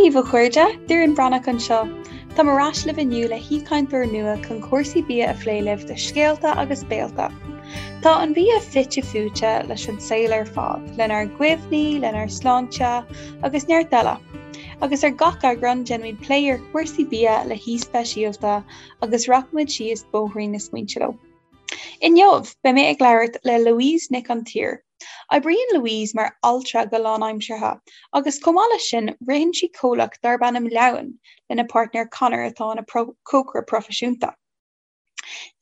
Dia daoibh, a chairde, Doireann Bhreathnach anseo. Táim ar ais libh inniu le haoichainteoir nua chun cúrsaí bia a phlé libh do Scéalta agus Béalta. Tá an bia fite fuaite leis an saol ar fad, lenár gcuimhní, lenár sláinte agus neart eile. Agus ar gach eagrán déanaimid plé ar chúrsaí bia le haoi speisialta agus rachaimid síos bóithrín na smaointe leo. Inniu, beidh mé ag labhairt le Louise Nic an tSaoir. Oibríonn Louise mar altra go lánaimseartha agus chomh maith leis sin ritheann sí comhlacht darb ainm Leamhain lena páirtnéir Conor atá ina chócaire proifisiúnta.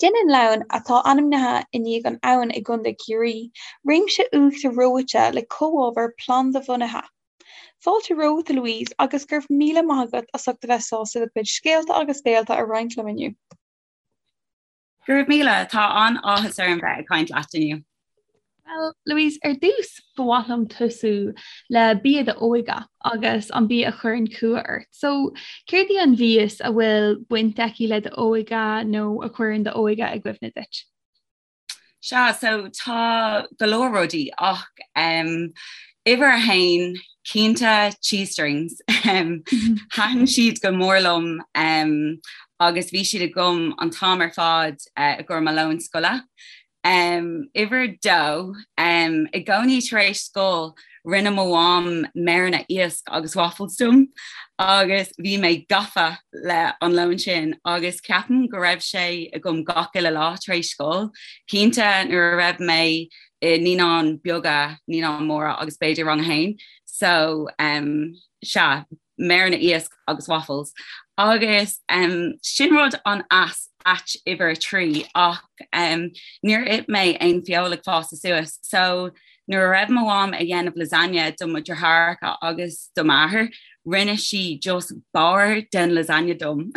Déanann Leamhain, atá ainmnithe i ndiaidh an abhainn i gContae Chiarraí, réimse uachtar reoite le comhábhair phlanda-bhunaithe. Fáilte romhat a Louise agus go raibh míle maith agat as ucht a bheith sásta do chuid scéalta agus béalta a roinnt liom inniu. Go raibh míle, tá an-áthas orm bheith ag caint leat inniu. Bhuel, Louise, ar dtús ba mhaith liom tosú le bia d'óige agus an bia a chuireann cumha ort. So, céard í an mhias a bhfuil baint aici le d'óige nó a chuireann d'óige i gcuimhne duit? Sea, so tá go leor rudaí ach um, uimhir a haon, cinnte cheese strings. Um, Thaitin siad go mór liom um, agus bhí siad agam an t-am ar fad uh, i gcomhair mo lón scoile. Um, uimhir dó, um, i gcónaí tar éis scoil rinne mo mham méireanna iasc agus waffles dom agus bhí mé gafa le an lón sin agus ceapaim go raibh sé agam gach uile lá tar éis scoil. Cinnte nuair a raibh mé i naíonáin beaga, naíonáin móra agus b'fhéidir rang a haon. So um, sea, méireanna iasc agus waffles. Agus um, sin rud an-ait uimhir a 3 ach um, níor ith mé aon feoil ag fás suas. So nuair a raibh mo mham ag dhéanamh lasagne do mo dheartháireacha agus do m'athair, rinne sí just barr den lasagne dom.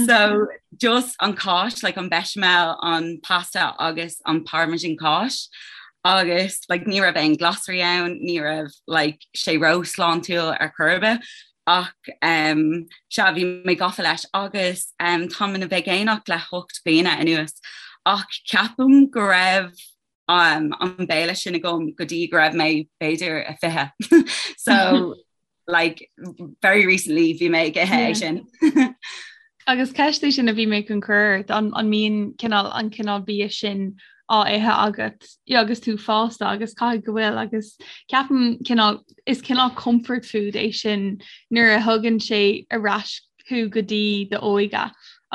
so just an cáis, like an bechamel, an pasta agus an parmesan cáis. Agus like, ní raibh aon glasraí ann, ní raibh like, sé ró-shláintiúil ar chor ar bith ach um, sea bhí mé gafa leis agus um, táim ina veigeánach le 8 bliana anuas ach ceapaim go raibh um, an béile sin agam go dtí go raibh mé b'fhéidir a 20. so like very recently bhí mé ag ithe é sin. Agus ceist í sin a bhí mé chun cur ort an an mbíonn cineál an cineál bia sin á ithe agat agus tú fásta agus caithfidh go bhfuil agus ceapaim cineál is cineál comfort food é sin nuair a thugann sé ar ais thú go dtí d'óige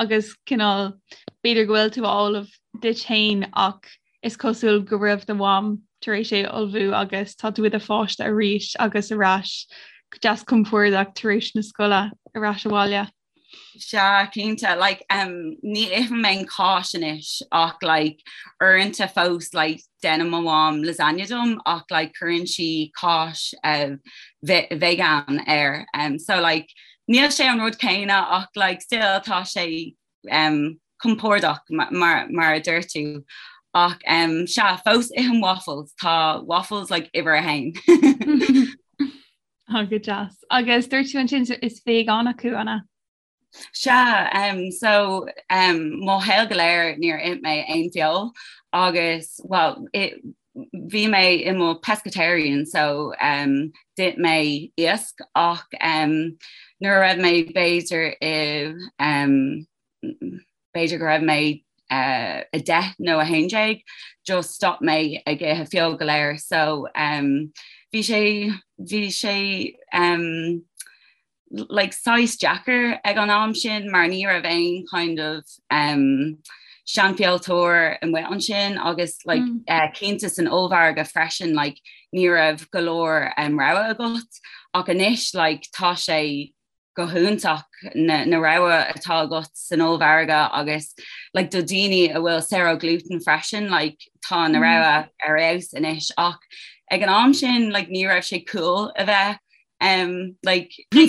agus cineál b'fhéidir go bhfuil tú á ullmhú duit féin ach is cosúil go raibh do mham tar éis é a ullmhú agus tá tú i do pháiste arís agus ar ais go deas compordach tar éis na scoile ar ais abhaile. Sea, cinnte, like, um, ní ithim aon cáis anois ach like, uaireanta fós like, déanann mo mham lasagne dom ach like, cuireann sí cáis uh, vegan air. Um, so like, níl sé an rud céanna ach like, still tá sé um, compordach mar, mar a deir tú. Ach um, sea, fós ithim waffles, tá waffles like, uimhir a haon. Tá go deas. Agus dúirt tú ansin is veigeánach thú, an ea? Sea, um, so um, mo shaol go léir níor ith mé aon feoil agus well, it, bhí mé i mo pescatarian so um, d'ith mé iasc ach um, nuair a raibh mé b'fhéidir i um, b'fhéidir go raibh mé uh, 10 nó 11 just stop mé ag ithe feoil go léir so um, bhí sé bhí sé um, like saghas deacair ag an am sin mar ní raibh aon kind of um, seanfheoltóir amuigh ansin agus like, mm. uh, cinnte san ollmhargadh freisin like, ní raibh go leor um, rogha agat ach anois like, tá sé go hiontach na, na rogha atá agat san ollmhargadh agus like, do daoine a bhfuil saor ó gluten freisin like, tá na mm. rogha ar fheabhas anois ach ag an am sin like, ní raibh sé cool a bheith um, like, um,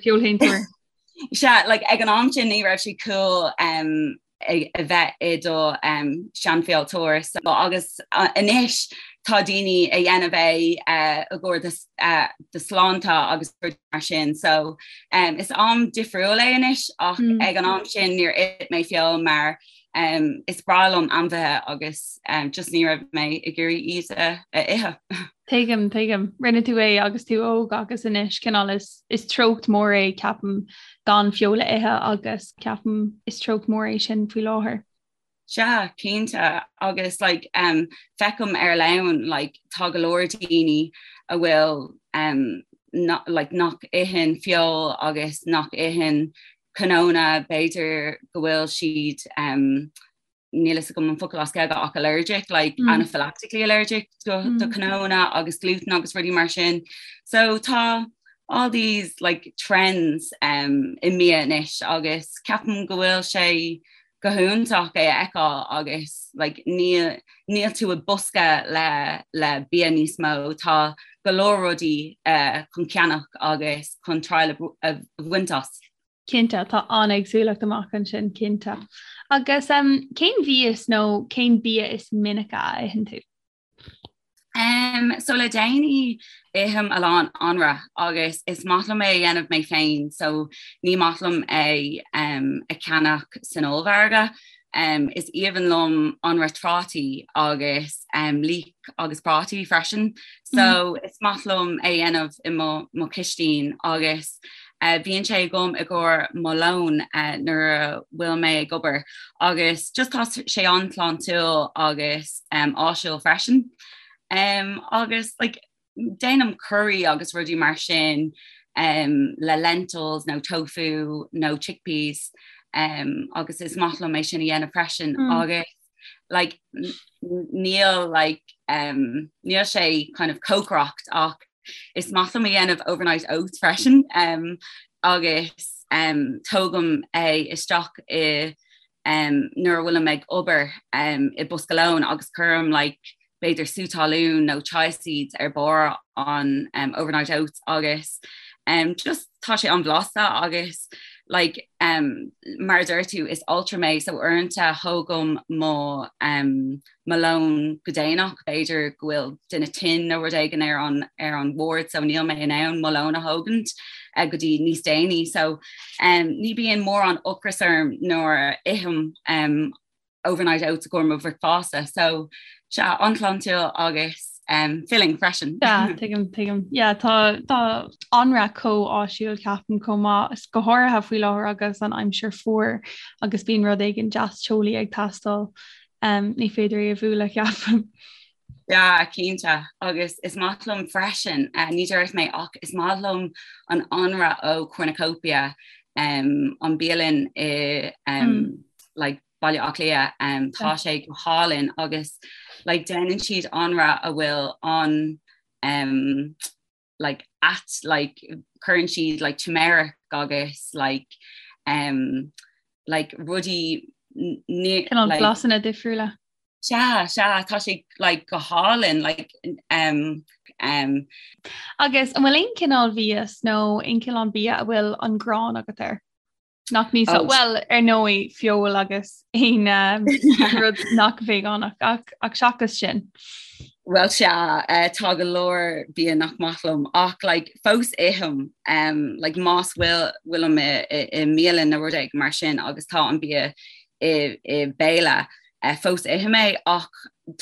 feolshéantóir. Sea, like, ag an am sin ní raibh sé cool um, a bheith i do um, seanfheoltóir so, agus uh, anois tá daoine a dhéanamh é uh, i gcomhair do, uh, do sláinte agus mar sin so um, is am difriúil é anois ach mm. ag an am sin níor ith mé feoil mar Um, is breá liom ainmhithe agus um, just ní raibh mé ag iarraidh iad a, a ithe. Tuigim, tuigim. Rinne tú é agus tú óg agus anois cineál is, is treocht mór é ceapaim gan feoil a ithe agus ceapaim is treocht mór é sin faoi láthair. Sea, cinnte agus like, um, feicim ar-line like, tá go leor daoine a bhfuil um, not, like, nach itheann feoil agus nach itheann cnónna, b'fhéidir go bhfuil siad um, níl fhios agam an focal as Gaeilge ach allergic, like mm. anaphylactically allergic do, mm. do cnónna agus gluten agus rudaí mar sin. So tá all these like trends um, i mbia anois agus ceapaim go bhfuil sé go hiontach é a fheiceáil agus like, níl, níl tú i bosca le, le bia níos mó, tá go leor rudaí uh, chun ceannach agus chun triail a bhaint as. Cinnte, tá an-éagsúlacht amach ansin, cinnte. Agus um, cén mhias nó cén bia is minice a itheann tú? Um, so le déanaí ithim a lán anraith agus is maith liom é a dhéanamh mé féin, so ní maith liom é um, a cheannach san ollmhargadh. Um, is aoibhinn liom anraith trátaí agus um, leek agus prátaí freisin, so mm. is maith liom é a dhéanamh i mo, mo chistin agus uh, bíonn sé agam i gcomhair mo lón uh, nuair a bhfuil mé ag obair agus just tá sé an-shláintiúil agus um, áisiúil freisin. Um, agus like, déanaim curry agus rudaí mar sin um, le lentils nó tofu nó chickpeas um, agus is maith liom é sin a dhéanamh freisin mm. agus like, níl like, um, níl sé kind of cócaireacht ach is maith liom a dhéanamh overnight oats freisin um, agus um, tógaim é isteach i um, nuair a bhfuilim ag obair um, i bosca lóin agus cuirim like, b'fhéidir sú talún nó chia seeds ar barr an um, overnight oats agus um, just tá sé an-bhlasta agus like, um, mar a deir tú is altra mé so uaireanta thógaim mo um, mo lón go déanach b'fhéidir go bhfuil duine tinn nó rud éigin ar an ar an ward so níl mé in ann mo lón a thógaint uh, go dtí níos déanaí so um, ní bíonn mórán ocras orm nuair a ithim um, overnight oats i gcomhair mo bhricfeasta so sea an-shláintiúil agus um, filling freisin. Yeah, tuigim tuigim. Yeah, tá tá anraith chomh áisiúil ceapaim chomh maith is go háirithe faoi láthair agus an aimsir fuar agus bíonn rud éigin deas teolaí ag teastáil. Um, ní féidir é a bhualadh ceapaim. Yeah, cinnte agus is maith liom freisin uh, ní dúirt mé ach is maith liom an anraith ó Cornucopia um, an bialann i um, mm. like, Baile Átha Cliath um, tá sé go hálainn agus like, déanann siad anraith a bhfuil an um, like, at like, cuireann siad like, turmeric agus like, um, like, rudaí like, blasanna difriúla. Sea, sea, tá sé like, go hálainn like, um, um, Agus an bhfuil aon cineál mhias nó aon cineál bia a bhfuil an ghráin agat air? Nach ní oh. Well ar ndóigh feoil agus aon um, rud nach vegánach ach ach seachas sin. Well sea uh, tá go leor bia nach maith liom ach like, fós ithim um, like, más bhfuil bhfuilim i, i, i mbialann nó rud éigin mar sin agus tá an bia i, i béile uh, fós ithim é ach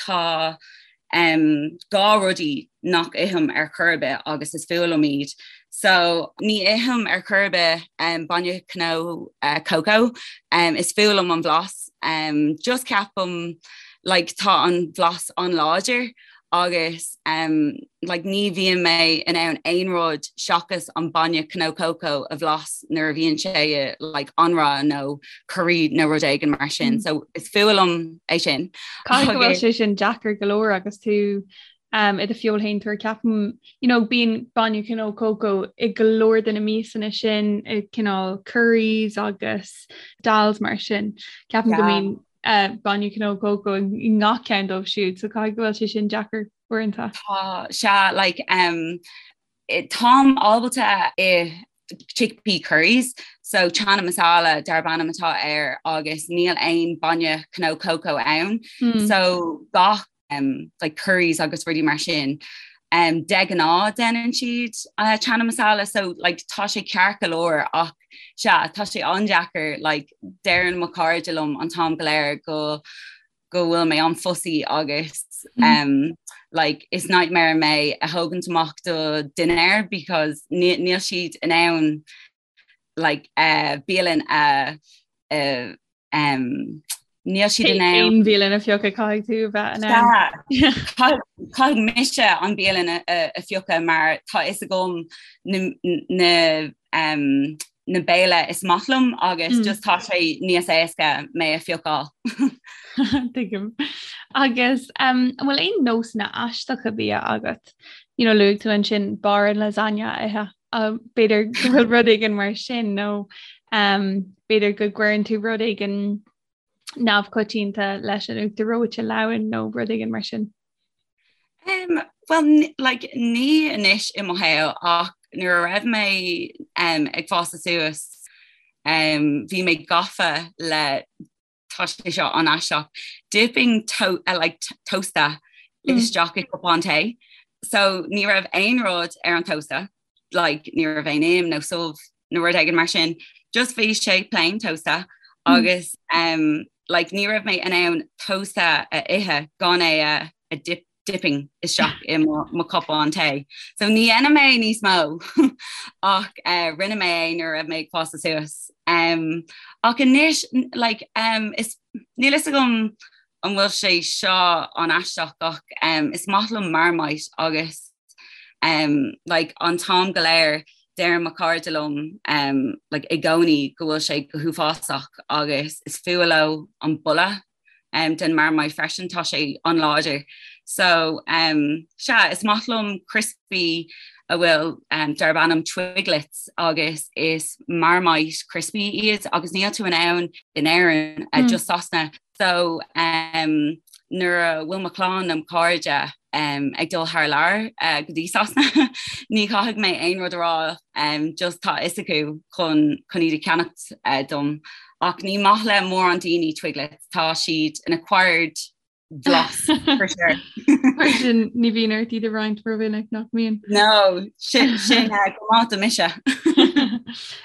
tá um, dhá rudaí nach ithim ar chor ar bith agus is fuath liom iad. So ní ithim ar chor ar bith um, bainne cnó uh, coco, um, is fuath liom an blas. Um, just ceapaim like, tá an blas an-láidir agus um, like, ní bhíonn mé in ann aon rud seachas an bainne cnó coco a bhlas nuair a bhíonn sé i like, anraith nó curry nó rud éigin mar sin. Mm. So is fuath liom é sin. Caithfidh go bhfuil sé sin deacair go leor agus tú um, i do feoilshéantóir ceapaim you know, bíonn bainne cnó coco i go leor de na miasanna sin i cineál curries agus dals mar sin. Ceapaim yeah. go mbíonn uh, bainne cnó coco i ngach ceann dóibh siúd, so caithfidh go bhfuil sé sin deacair uaireanta. Tá sea like, um, táim ábalta ithe chickpea curries, so chana masala darb ainm atá air agus níl aon bainne cnó coco ann, mm. so gach um, like curries agus rudaí mar sin. Um, de ghnáth déanann siad uh, chana masala so like, tá sé ceart go leor ach sea tá sé an-deacair like, deireann mo chairde liom an t-am go léir go go bhfuil mé an-fussy agus mm. um, like, is nightmare mé a thógaint amach do dinnéar because níl siad in ann like uh, bialann a uh, um, níl siad in ann aon bhialann a phiocadh caithfidh tú bheith in ann. Caithfidh mise an bialann a phiocadh mar tá fhios agam na, na, um, na béile is maith liom agus mm. just tá sé níos éasca mé a phiocáil. Tuigim. Agus um, an bhfuil aon nósanna aisteacha bia agat? You know, luaigh tú ansin barr an lasagna a ithe. B'fhéidir go bhfuil rud éigin mar sin nó b'fhéidir go gcuireann tú rud éigin neamhchoitianta leis an uachtar reoite leamhan nó rud éigin mar sin. Um, well, like, ní anois i mo shaol ach nuair a raibh mé um, ag fás suas um, bhí mé gafa le tá sé seo an-aisteach, dipping to, uh, like, tósta mm. isteach i cupán tae. So ní raibh aon rud ar an tósta, like, ní raibh aon im nó subh nó rud éigin mar sin, just bhí sé plain tósta mm. agus um, like, ní raibh mé in ann tósta a ithe gan é a, a dip dipping isteach i mo cupán tae. So ní dhéanaim é níos mó ach uh, rinne mé é nuair a raibh mé ag fás suas. Um, ach anois like, um, is, níl fhios agam an bhfuil sé seo an-aisteach ach um, is maith liom Marmite agus um, like, an t-am go léir deir mo chairde liom um, like, i gcónaí go bhfuil sé go huafásach agus is fuath leo an boladh um, den Marmite freisin tá sé an-láidir. So um, sea is maith liom crispy a bhfuil um, darb ainm Twiglets agus is Marmite crispy iad agus níl tú in ann in Éirinn uh, mm. just Sasana. So um, nuair a bhfuil mo chlann nó cairde um, ag dul thar lear uh, go dtí Sasana ní chaithfidh mé aon rud a rá um, just tá fhios acu chun chun iad a cheannacht uh, dom. Ach ní maith le mórán daoine Twiglets, tá siad an acquired blas for sure. Mar sin ní bhíonn ort iad a roinnt rómhinic nach mbíonn. No, sin sin uh, go maith do mise.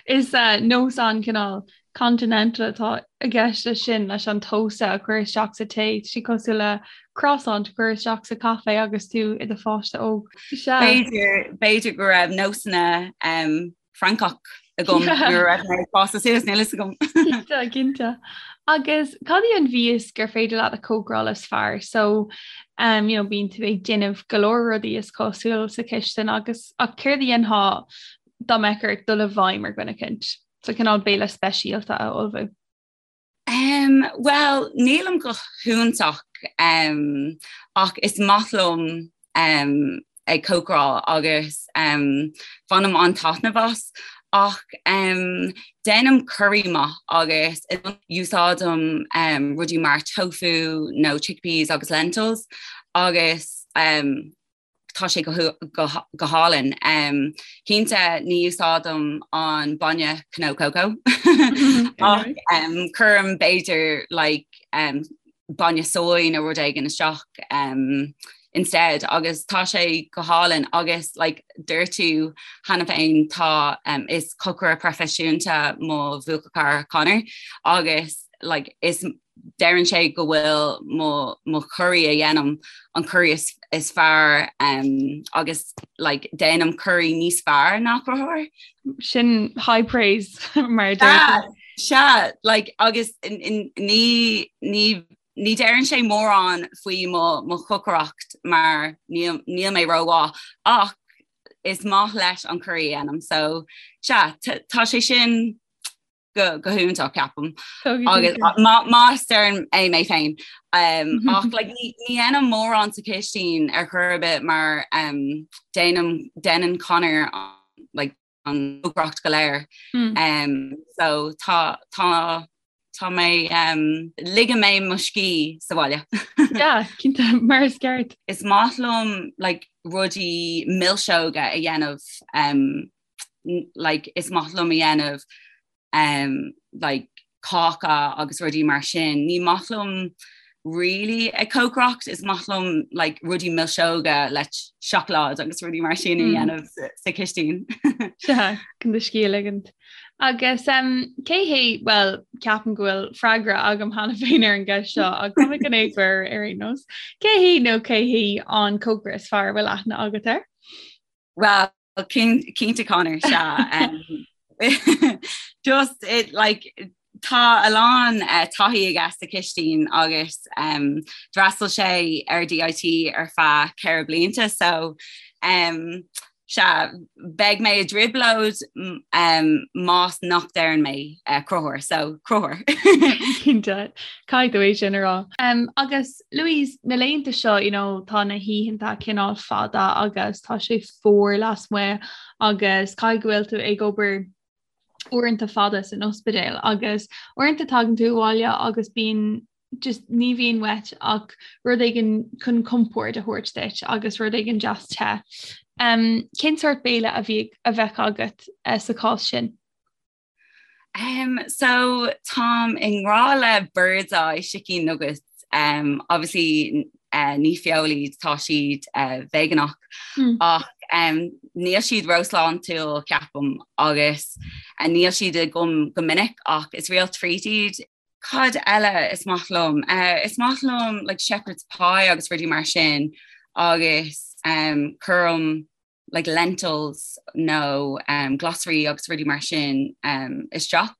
Is uh, nós an-chineál continental atá i gceist leis sin leis an tósta a chur isteach sa tae, tá sé cosúil le croissant a chur isteach sa caife agus tú i do pháiste óg. B'fhéidir b'fhéidir go raibh nósanna um, Francach agam nuair a raibh mé ag fás suas níl fhios agam. Cinnte, cinnte. Agus cad í an mhias gur féidir leat a chócaráil is fearr? So um, you know, bíonn tú ag déanamh go leor rudaí is cosúil sa chistin agus ach céard a dhéanfá dá mbeadh ort dul i bhfeidhm ar dhuine eicínt? So cineál béile speisialta a ullmhú. Um, well, nílim go hiontach um, ach is maith liom um, ag cócaráil agus um, bainim an-taitneamh as ach um, déanaim curry maith agus úsáidim um, rudaí mar tofu nó chickpeas agus lentils agus um, tá sé go hálainn. Cinnte ní úsáidim an bainne cnó cócó ach cuirim b'fhéidir like bainne soy nó rud éigin isteach instead agus tá sé go hálainn agus like dúirt tú cheana féin tá is cocaire proifisiúnta mo bhuachaill Conor agus like is deireann sé go bhfuil mo mo curry a dhéanaim an curry is, is fearr um, agus like, déanaim curry níos fearr ná Conchúr. Sin high praise mar Sea like, agus ní ní ní deireann sé mórán faoi mo mo chócaireacht mar níl níl mé rómhaith ach is maith leis an curry a dhéanaim so sea tá sé sin go go hiontach ceapaim agus más deirim é mé féin um, ach like, ní ní dhéanaim mórán sa chistin ar chor ar bith mar um, déanaim déanann Conor like, an chócaireacht go léir mm. um, so tá tá tá mé um, ligeann mé mo scíth sa bhaile. Yeah, cinnte mar is ceart. Is maith liom like, rudaí milseoga a dhéanamh um, like is maith liom a dhéanamh um, like cáca agus rudaí mar sin. Ní maith liom really ag cócaireacht is maith liom like rudaí milseoga le seacláid agus rudaí mar sin a hmm. dhéanamh sa chistin. Sea chun do scíth a ligint. Agus um, cé hé well ceapaim go bhfuil freagra agam cheana féin ar an gceist seo ach tá mé chun é chur ar aon nós. Cé hé nó cé hí an cócaire is fearr a bhfuil aithne agat air? Well cinnte Conor sea um, just it like tá a lán uh, taithí aige sa chistin agus um, d'fhreastail sé ar DIT ar feadh 4 blianta so um, sea beidh mé i dtrioblóid um, más nach ndeireann mé uh, Conchúr so Conchúr. Cinnte caithfidh tú é sin a rá. Um, agus Louise, na laethanta seo you know, tá na hoícheanta cineál fada agus tá sé fuar lasmuigh agus caithfidh go bhfuil tú ag obair uaireanta fada san ospidéal agus uaireanta tagann tú abhaile agus bíonn just ní bhíonn uait ach rud éigin chun compord a thabhairt duit agus rud éigin deas te. Um, cén sórt béile a bhí a bheadh agat uh, sa chás sin? Um, so táim i ngrá le Birds Eye chicken nuggets. Um, obviously uh, ní feoil iad tá siad uh, veigeánach mm. ach um, níl siad róshláintiúil ceapaim agus uh, níl siad agam go minic ach is real treat iad. Cad eile is maith liom? Uh, is maith liom like shepherd's pie agus rudaí mar sin agus um, cuirim like lentils nó um, glasraí agus rudaí mar sin um, isteach.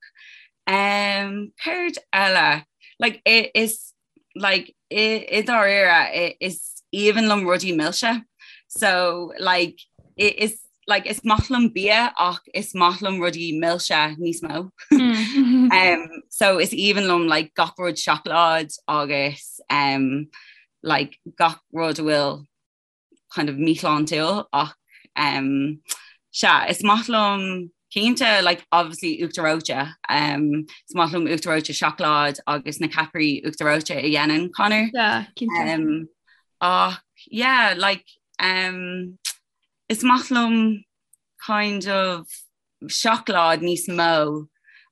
Um, céard eile like, is like, i, i dáiríre is aoibhinn liom rudaí milse. So like, is like, is maith liom bia ach is maith liom rudaí milse níos mó. Mm. um, so is aoibhinn liom like, gach rud seacláid agus um, like, gach rud a bhfuil kind of míshláintiúil ach um, sea is maith liom cinnte like obviously uachtar reoite um, is maith liom uachtar reoite seacláid agus na ceapairí uachtar reoite a dhéanann Conor yeah, um, ach yeah like um, is maith liom kind of seacláid níos mó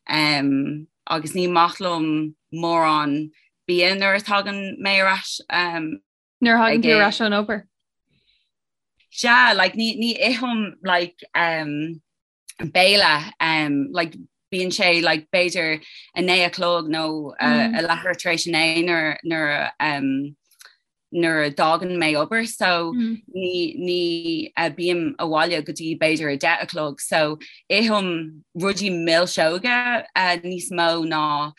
um, agus ní maith liom mórán bia nuair a tagann mé ar ais um, Nuair a thagann tú ar ais ón obair? Sea, like, ní, ní ithim like, um, béile um, like, bíonn sé like, b'fhéidir a 9 a chlog nó uh, mm. a leathuair tar éis a 9 nuair nuair um, nuair a d'fhágann mé obair so mm. ní ní uh, bím abhaile go dtí b'fhéidir a 10 a chlog so ithim rudaí milseoga uh, níos mó ná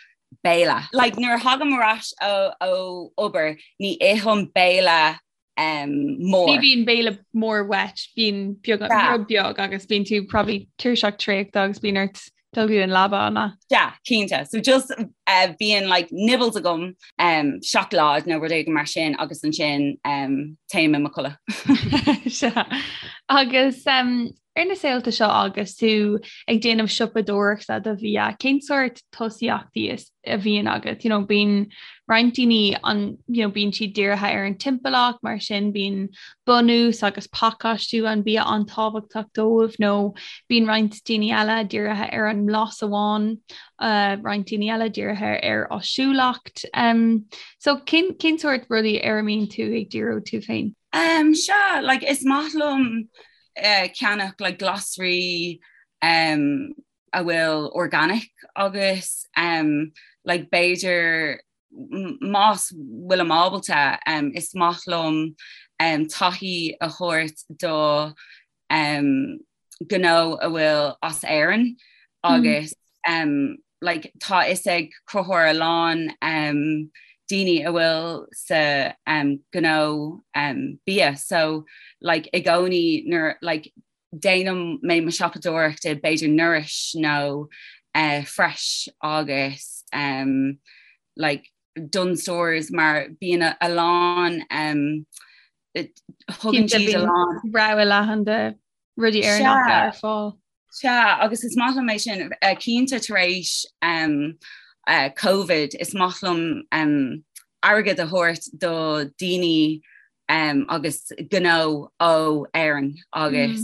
béile. Like nuair a thagaim ar ais ó ó obair ní ithim béile um, mór. Ní bhíonn béile mór uait, bíonn beag rud beag agus bíonn tú probably tuirseach traochta agus bíonn ort dul go dtí an leaba an ea? Yeah, cinnte. So just uh, bíonn like nibbles agam um, seacláid nó rud éigin mar sin agus ansin um, téim i mo chodladh. Sea. Agus um, Ar na saolta seo agus tú ag déanamh siopadóireachta do bhia, cén sórt tosaíochtaí is a bhíonn agat? You know, bíonn roinnt daoine an, you know, bíonn siad dírithe ar an timpeallacht, mar sin bíonn bunús agus pacáistiú an bia an-tábhachtach dóibh, nó bíonn roinnt daoine eile dírithe ar an mblas amháin, uh, roinnt daoine eile dírithe ar áisiúlacht. Um, so cén, cén sórt rudaí ar a mbíonn tú ag díriú tú féin? Um, sea, like, is maith liom ceannach like glasraí um, a bhfuil organic agus um, like b'fhéidir más bhfuilim ábalta um, is maith liom um, taithí a thabhairt do um, gnó a bhfuil as Éirinn agus mm. um, like, tá fhios ag Conchúr a lán um, daoine a bhfuil sa um, gnó um, bia so like, i gcónaí nuair like, déanaim mé mo siopadóireacht i b'fhéidir Nourish nó uh, Fresh agus um, like, Dunnes Stores mar bíonn a, a lán um, thugann siad a lán rogha leathan de rudaí Éireannacha ar fáil. Sea, agus is maith liom é sin, cinnte tar éis Covid, is maith liom airgead a thabhairt do daoine agus gnó ó Éirinn agus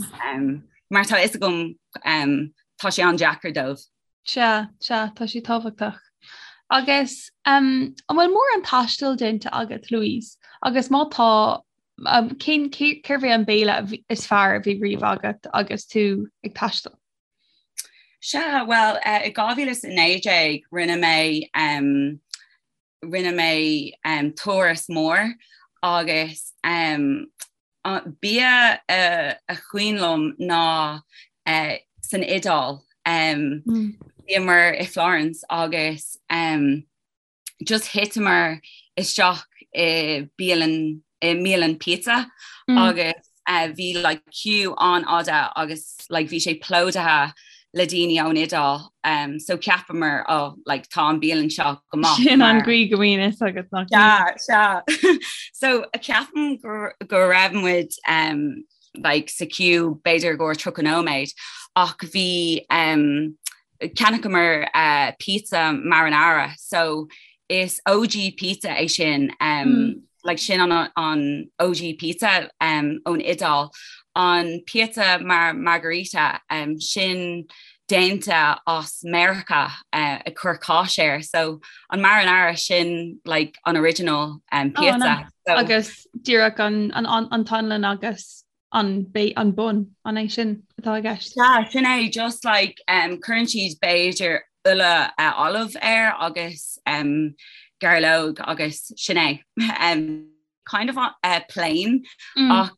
mar tá fhios agam tá sé an-deacair dóibh. Sea, sea, tá sé tábhachtach. Agus um, an bhfuil mórán taistil déanta agat, Louise? Agus má tá, um, cén cérbh é an béile is fearr a bhí riamh agat agus tú ag taisteal? Sea, bhuel, uh, i 2019 rinne mé um, rinne mé um, turas mór agus um, bia uh, a cuimhin liom ná uh, san Iodáil. Um, mm. Bhíomar i Florence agus um, just thiteamar isteach i bialann i mbialann pizza mm. agus uh, bhí like, queue an-fhada agus like, bhí sé plódaithe le daoine ón Iodáil um, so cheapamar oh, like, tá an bialann seo go maith. Sin an chaoi go mbíonn fhios agat nach sea so ceapaim go, go raibh muid um, like, sa queue b'fhéidir go 30 nóiméad ach bhí um, Cheannaíomar uh, pizza marinara so is OG pizza é sin um, mm. like sin an, an OG pizza um, ón Iodáil an pizza mar margarita um, sin déanta as Meiriceá uh, ag cur cáis air so an marinara sin like an original um, pizza oh, no. so, agus díreach an, an, an, an t-anlann agus an an bun an é sin atá i gceist. Yeah, sin é just like um, cuireann siad b'fhéidir ola uh, olive air agus um, gairleog agus sin é. Um, kind of uh, plain mm. ach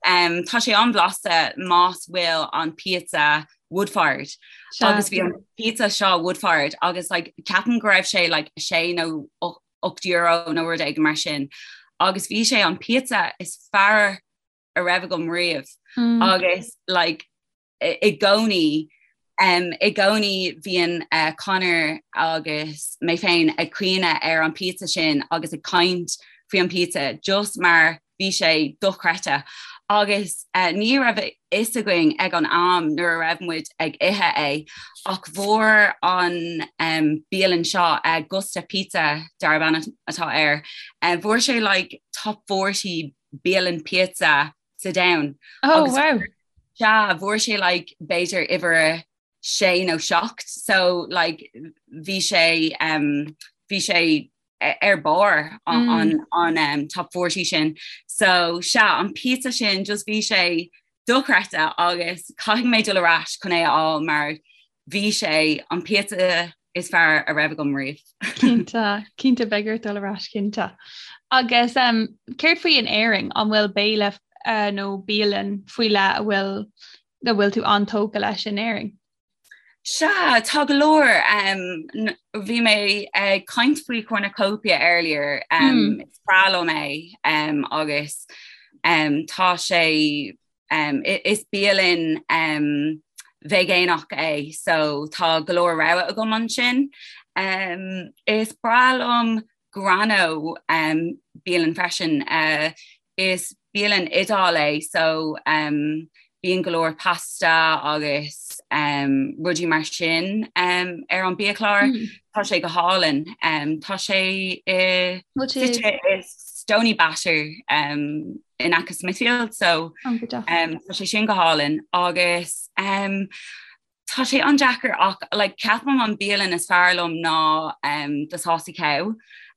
um, tá sé an-bhlasta más bhfuil an pizza wood-fired agus bhí an pizza seo wood-fired agus like, ceapaim go raibh sé like, sé nó €8 nó rud éigin mar sin agus bhí sé an pizza is fearr a raibh agam riamh mm. agus like, i gcónaí um, i gcónaí bhíonn uh, Conor agus mé féin ag cuimhneamh ar an pizza sin agus ag caint faoi an pizza just mar bhí sé dochreidte agus uh, ní raibh a fhios againn ag an am nuair a raibh muid ag ithe é ach bhfuair an um, bialann seo uh, Gusta Pizza darb ainm atá air uh, bhfuair sé like, top 40 bialann pizza sa domhan. Oh, agus wow. Sea, bhfuair sé like, b'fhéidir uimhir sé nó seacht so like, bhí sé um, bhí sé ar barr an, mm. an, an um, top 40 sin. So sea an pizza sin just bhí sé dochreidte agus caithfidh mé dul ar ais chun é a fháil mar bhí sé an pizza is fearr a raibh agam riamh. Cinnte, cinnte beidh ort dul ar ais cinnte. Agus um, céard faoi in Éirinn an bhfuil béile uh, nó bialann faoi leith a bhfuil a bhfuil tú an-tógtha leis in Éirinn? Sea, tá go leor. Um, bhí mé ag caint faoi Cornucopia earlier. Um, mm. Is breá liom é um, agus um, tá sé um, is bialann um, veigeánach é, so tá go leor rogha agam ansin. Um, is breá liom Grano um, bialann freisin. Uh, is bialann Iodáil é so um, bíonn go leor pasta agus um, rudaí mar sin um, ar an biachlár. Mm. Tá sé go hálainn. Um, tá sé i i Stoneybatter um, in aice Smithfield so um, tá sé sin go hálainn agus um, Tá sé an-deacair ach like, ceapaim an bialann is fearr liom ná um, The Saucy Cow.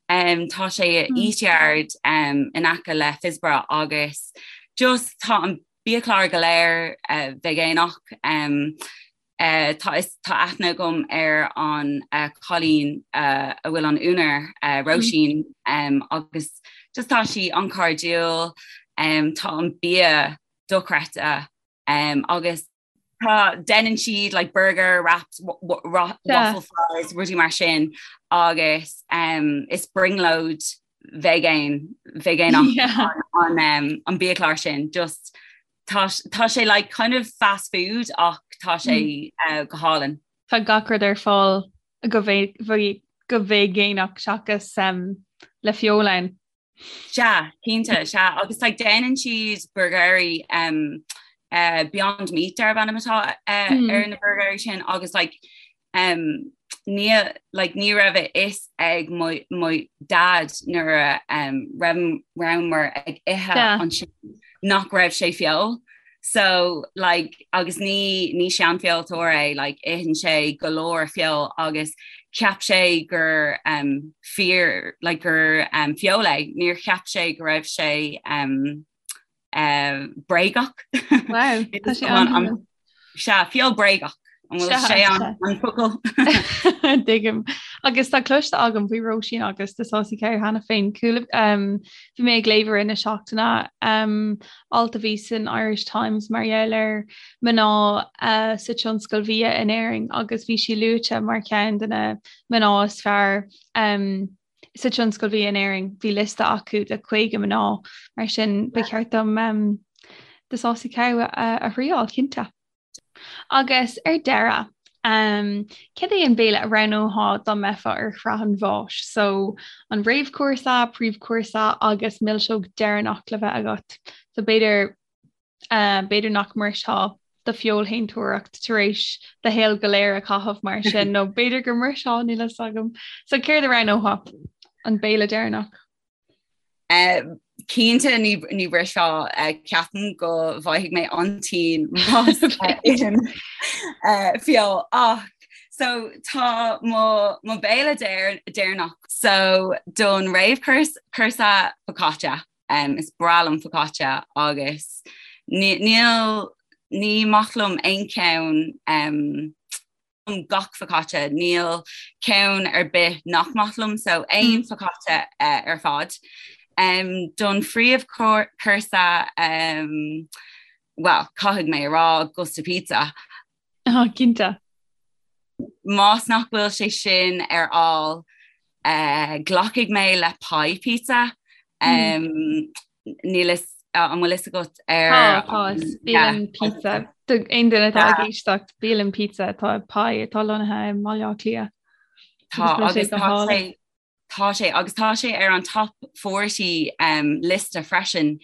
Um, tá sé i mm. Eatyard um, in aice le Phibsborough agus just tá an biachlár go léir uh, veigeánach. Um, uh, tá, is, tá aithne agam ar an uh, cailín uh, a bhfuil an úinéir uh, Róisín mm. um, agus just tá sí an-chairdiúil um, tá an bia dochreidte um, agus Tá déanann siad like burger wraps waffle fries rudaí mar sin agus um, is brionglóid vegan veigeánach yeah. an, um, an biachlár sin just tá, tá sé like kind of fast food ach tá sé mm. uh, go hálainn. Tá gach rud ar fáil go go veigeánach seachas um, le feoil ann. Sea, cinnte, sea, agus like déanann siad burgairí um, uh, Beyond Meat darb ainm atá uh, mm. ar na burgairí sin agus like um, ní like, ní raibh a fhios ag mo, mo dad nuair a um, rabhamar ag ithe yeah. ansin nach raibh sé feoil. So like agus ní ní seanfheoltóir é like itheann sé go leor feoil agus cheap sé gur um, fíor like, gur um, feol é, níor cheap sé go raibh sé um, uh, bréagach. Wow, tá sé an Sea, feol bréagach. An bhfuil sé an focal? Tuigim. Agus tá cloiste agam faoi Róisín agus The Saucy Cow cheana féin. Bhí mé ag léamh i rith na seachtaine um, alt a bhí san Irish Times mar gheall ar mná uh, sa tionscal bhia in Éirinn agus bhí sí luaite mar cheann de na mná is fearr um, sa tionscal bhia in Éirinn. Bhí liosta acu de 50 mná mar sin ba cheart dom um, The Saucy Cow a, a thriáil cinnte. Agus ar deireadh, um, cad é an béile a roghnófá dá mbeifeá ar shraith an bháis? So an réamhchúrsa, príomhchúrsa agus milseog deireanach le bheith agat. So b'fhéidir uh, b'fhéidir nach mbrisfeá do feoilshéantóireacht tar éis do shaol go léir a chaitheamh mar sin nó b'fhéidir go mbrisfeá níl a fhios agam. So céard a roghnófá an béile deireanach? Uh, cinnte ní, ní bhrisfeá uh, ceapaim go bhfaighidh mé an-tinn más ithim uh, feoil ach so tá mo, mo béile deireanach so don réamhchúrsa focaccia Um, is breá liom focaccia agus níl ní maith liom aon cheann um, gach focaccia, níl ceann ar bith nach maith liom, so aon mm. focaccia uh, ar fad. Um, don phríomhchúrsa um, well, caithfidh mé a rá Gusta Pizza. Oh, cinnte. Más nach bhfuil sé sin ar fháil, uh, glacfaidh mé le pie pizza. Um, mm. Níl fhios an bhfuil fhios agat ar Tá bialann pizza aon duine atá ag éisteacht bialann pizza atá pie atá lonnaithe i mBaile Átha Cliath. Tá agus tá sé Tá sé agus tá sé ar an top 40 um, liosta freisin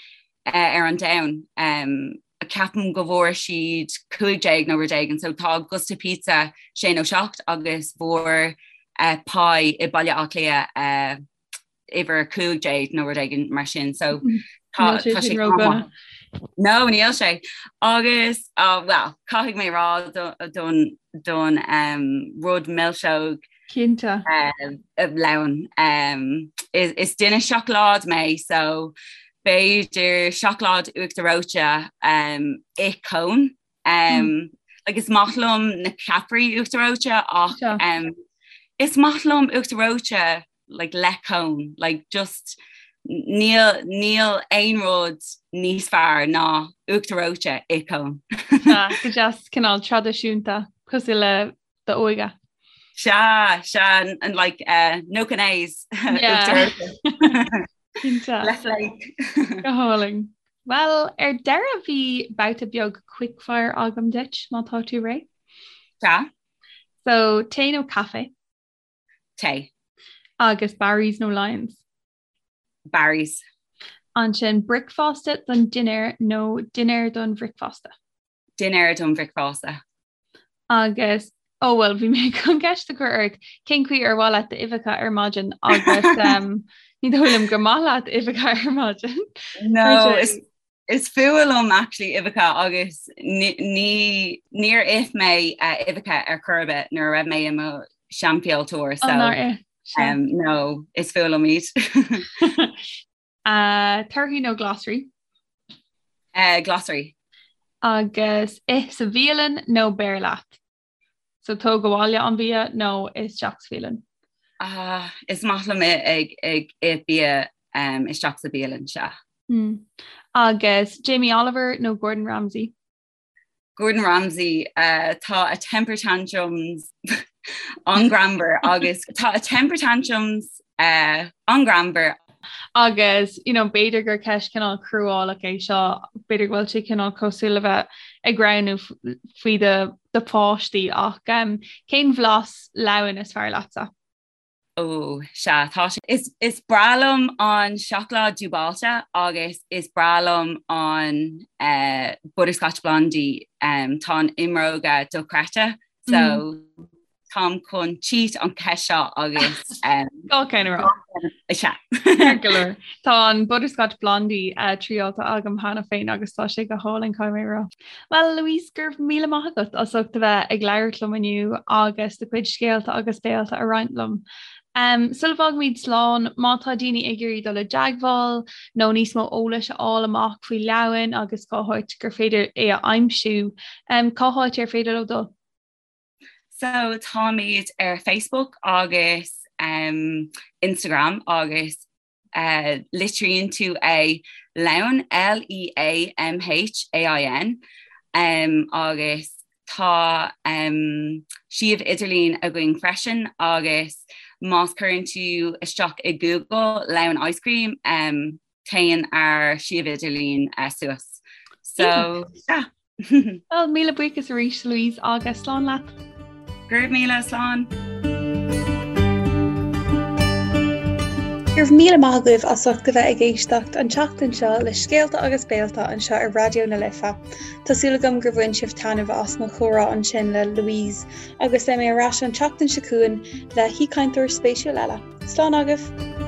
uh, ar an domhan. Um, ceapaim go bhfuair siad 15 nó rud éigin, so tá Gusta Pizza sé nó 7 agus bhfuair uh, Pie i Baile Átha Cliath uh, uimhir 15 nó rud éigin mar sin so tá sé sin No níl sé agus uh, well caithfidh mé rá don don um, rud milseog Cinnte. Leann. Um, is, is duine seacláid mé so b'fhéidir seacláid uachtar reoite um, i cone. Um, mm. like is maith liom na ceapairí uachtar reoite ach um, is maith liom uachtar reoite like le cone like just níl níl aon rud níos fearr ná uachtar reoite i cone. Go deas cineál traidisiúnta cosúil le d'óige. Sea, sea, and like uh, no canaise. Cinnte. Le flake. Go hálainn. Well, ar deireadh bhí babhta beag quickfire agam duit má tá tú réidh. Sea. So, tae nó caife? Tae. Agus Barry's nó Lyons? Barry's. Ansin bricfeasta don dinnéar nó dinnéar don bhricfeasta? Dinnéar don bhricfeasta. Agus oh well bhí mé chun ceist a chur ort cén chaoi ar mhaith leat d'uibheacha ar maidin agus um, ní dóigh liom gur maith leat uibheacha ar maidin. No, is, is fuath liom actually uibheacha agus ní níor ith mé uh, uibheacha ar chor ar bith nuair a raibh mé i mo sheanfheoiltóir so oh, um, no, is fuath liom iad. Uh, torthaí nó glasraí? Uh, glasraí. Agus ith sa bhialann nó beir leat? So tóg abhaile an bia nó isteach sa bhialann? Uh, is maith liom ag ag ith bia um, isteach sa bhialann sea. Mm. Agus Jamie Oliver nó Gordon Ramsay? Gordon Ramsay uh, tá a temper tantrums an-ghreannmhar agus tá a temper tantrums uh, an-ghreannmhar. Agus you know, b'fhéidir gur ceist cineál cruálach é seo, b'fhéidir go bhfuil sé cineál cosúil le bheith ag roghnú faoi do do pháistí ach um, cén bhlas leamhain is fearr leatsa? Ó, sea, tá sé. Is, is breá liom an seacláid dúbailte agus is breá liom an uh, butterscotch blondie. Um, tá an imreoga dochreidte, so mm. táim chun cheat an cheist seo agus Gá ceann a rá. Sea. Ceart go leor. Tá an Butterscotch Blondie uh, triáilte agam cheana féin agus tá sé go hálainn caithfidh mé a rá. Well Louise, go raibh míle maith agat as ucht a bheith ag labhairt liom inniu agus do chuid scéalta agus béalta a roinnt liom. Um, sula bhfágaimid slán, má tá daoine ag iarraidh dul i dteagmháil nó níos mó eolais a fháil amach faoi Leamhain agus cá háit gur féidir é a aimsiú, um, cá háit ar féidir leo dul? So táimid ar Facebook agus um, Instagram agus uh, litríonn tú é Leamhain L-E-A-M-H-A-I-N um, agus tá um, suíomh idirlín againn freisin agus más cuireann tú isteach i Google Leamhain Ice Cream um, téann ár suíomh idirlín uh, suas. So yeah. Well, míle buíochas arís Louise agus slán leat. Go raibh míle slán. Go raibh míle maith agaibh as ucht a bheith ag éisteacht an tseachtain seo le scéalta agus béalta anseo ar Raidió na Life. Tá súil agam gur bhain sibh taitneamh as mo chomhrá ansin le Louise agus beidh mé ar ais an tseachtain seo chugainn le haoichainteoir spéisiúil eile. Slán agaibh!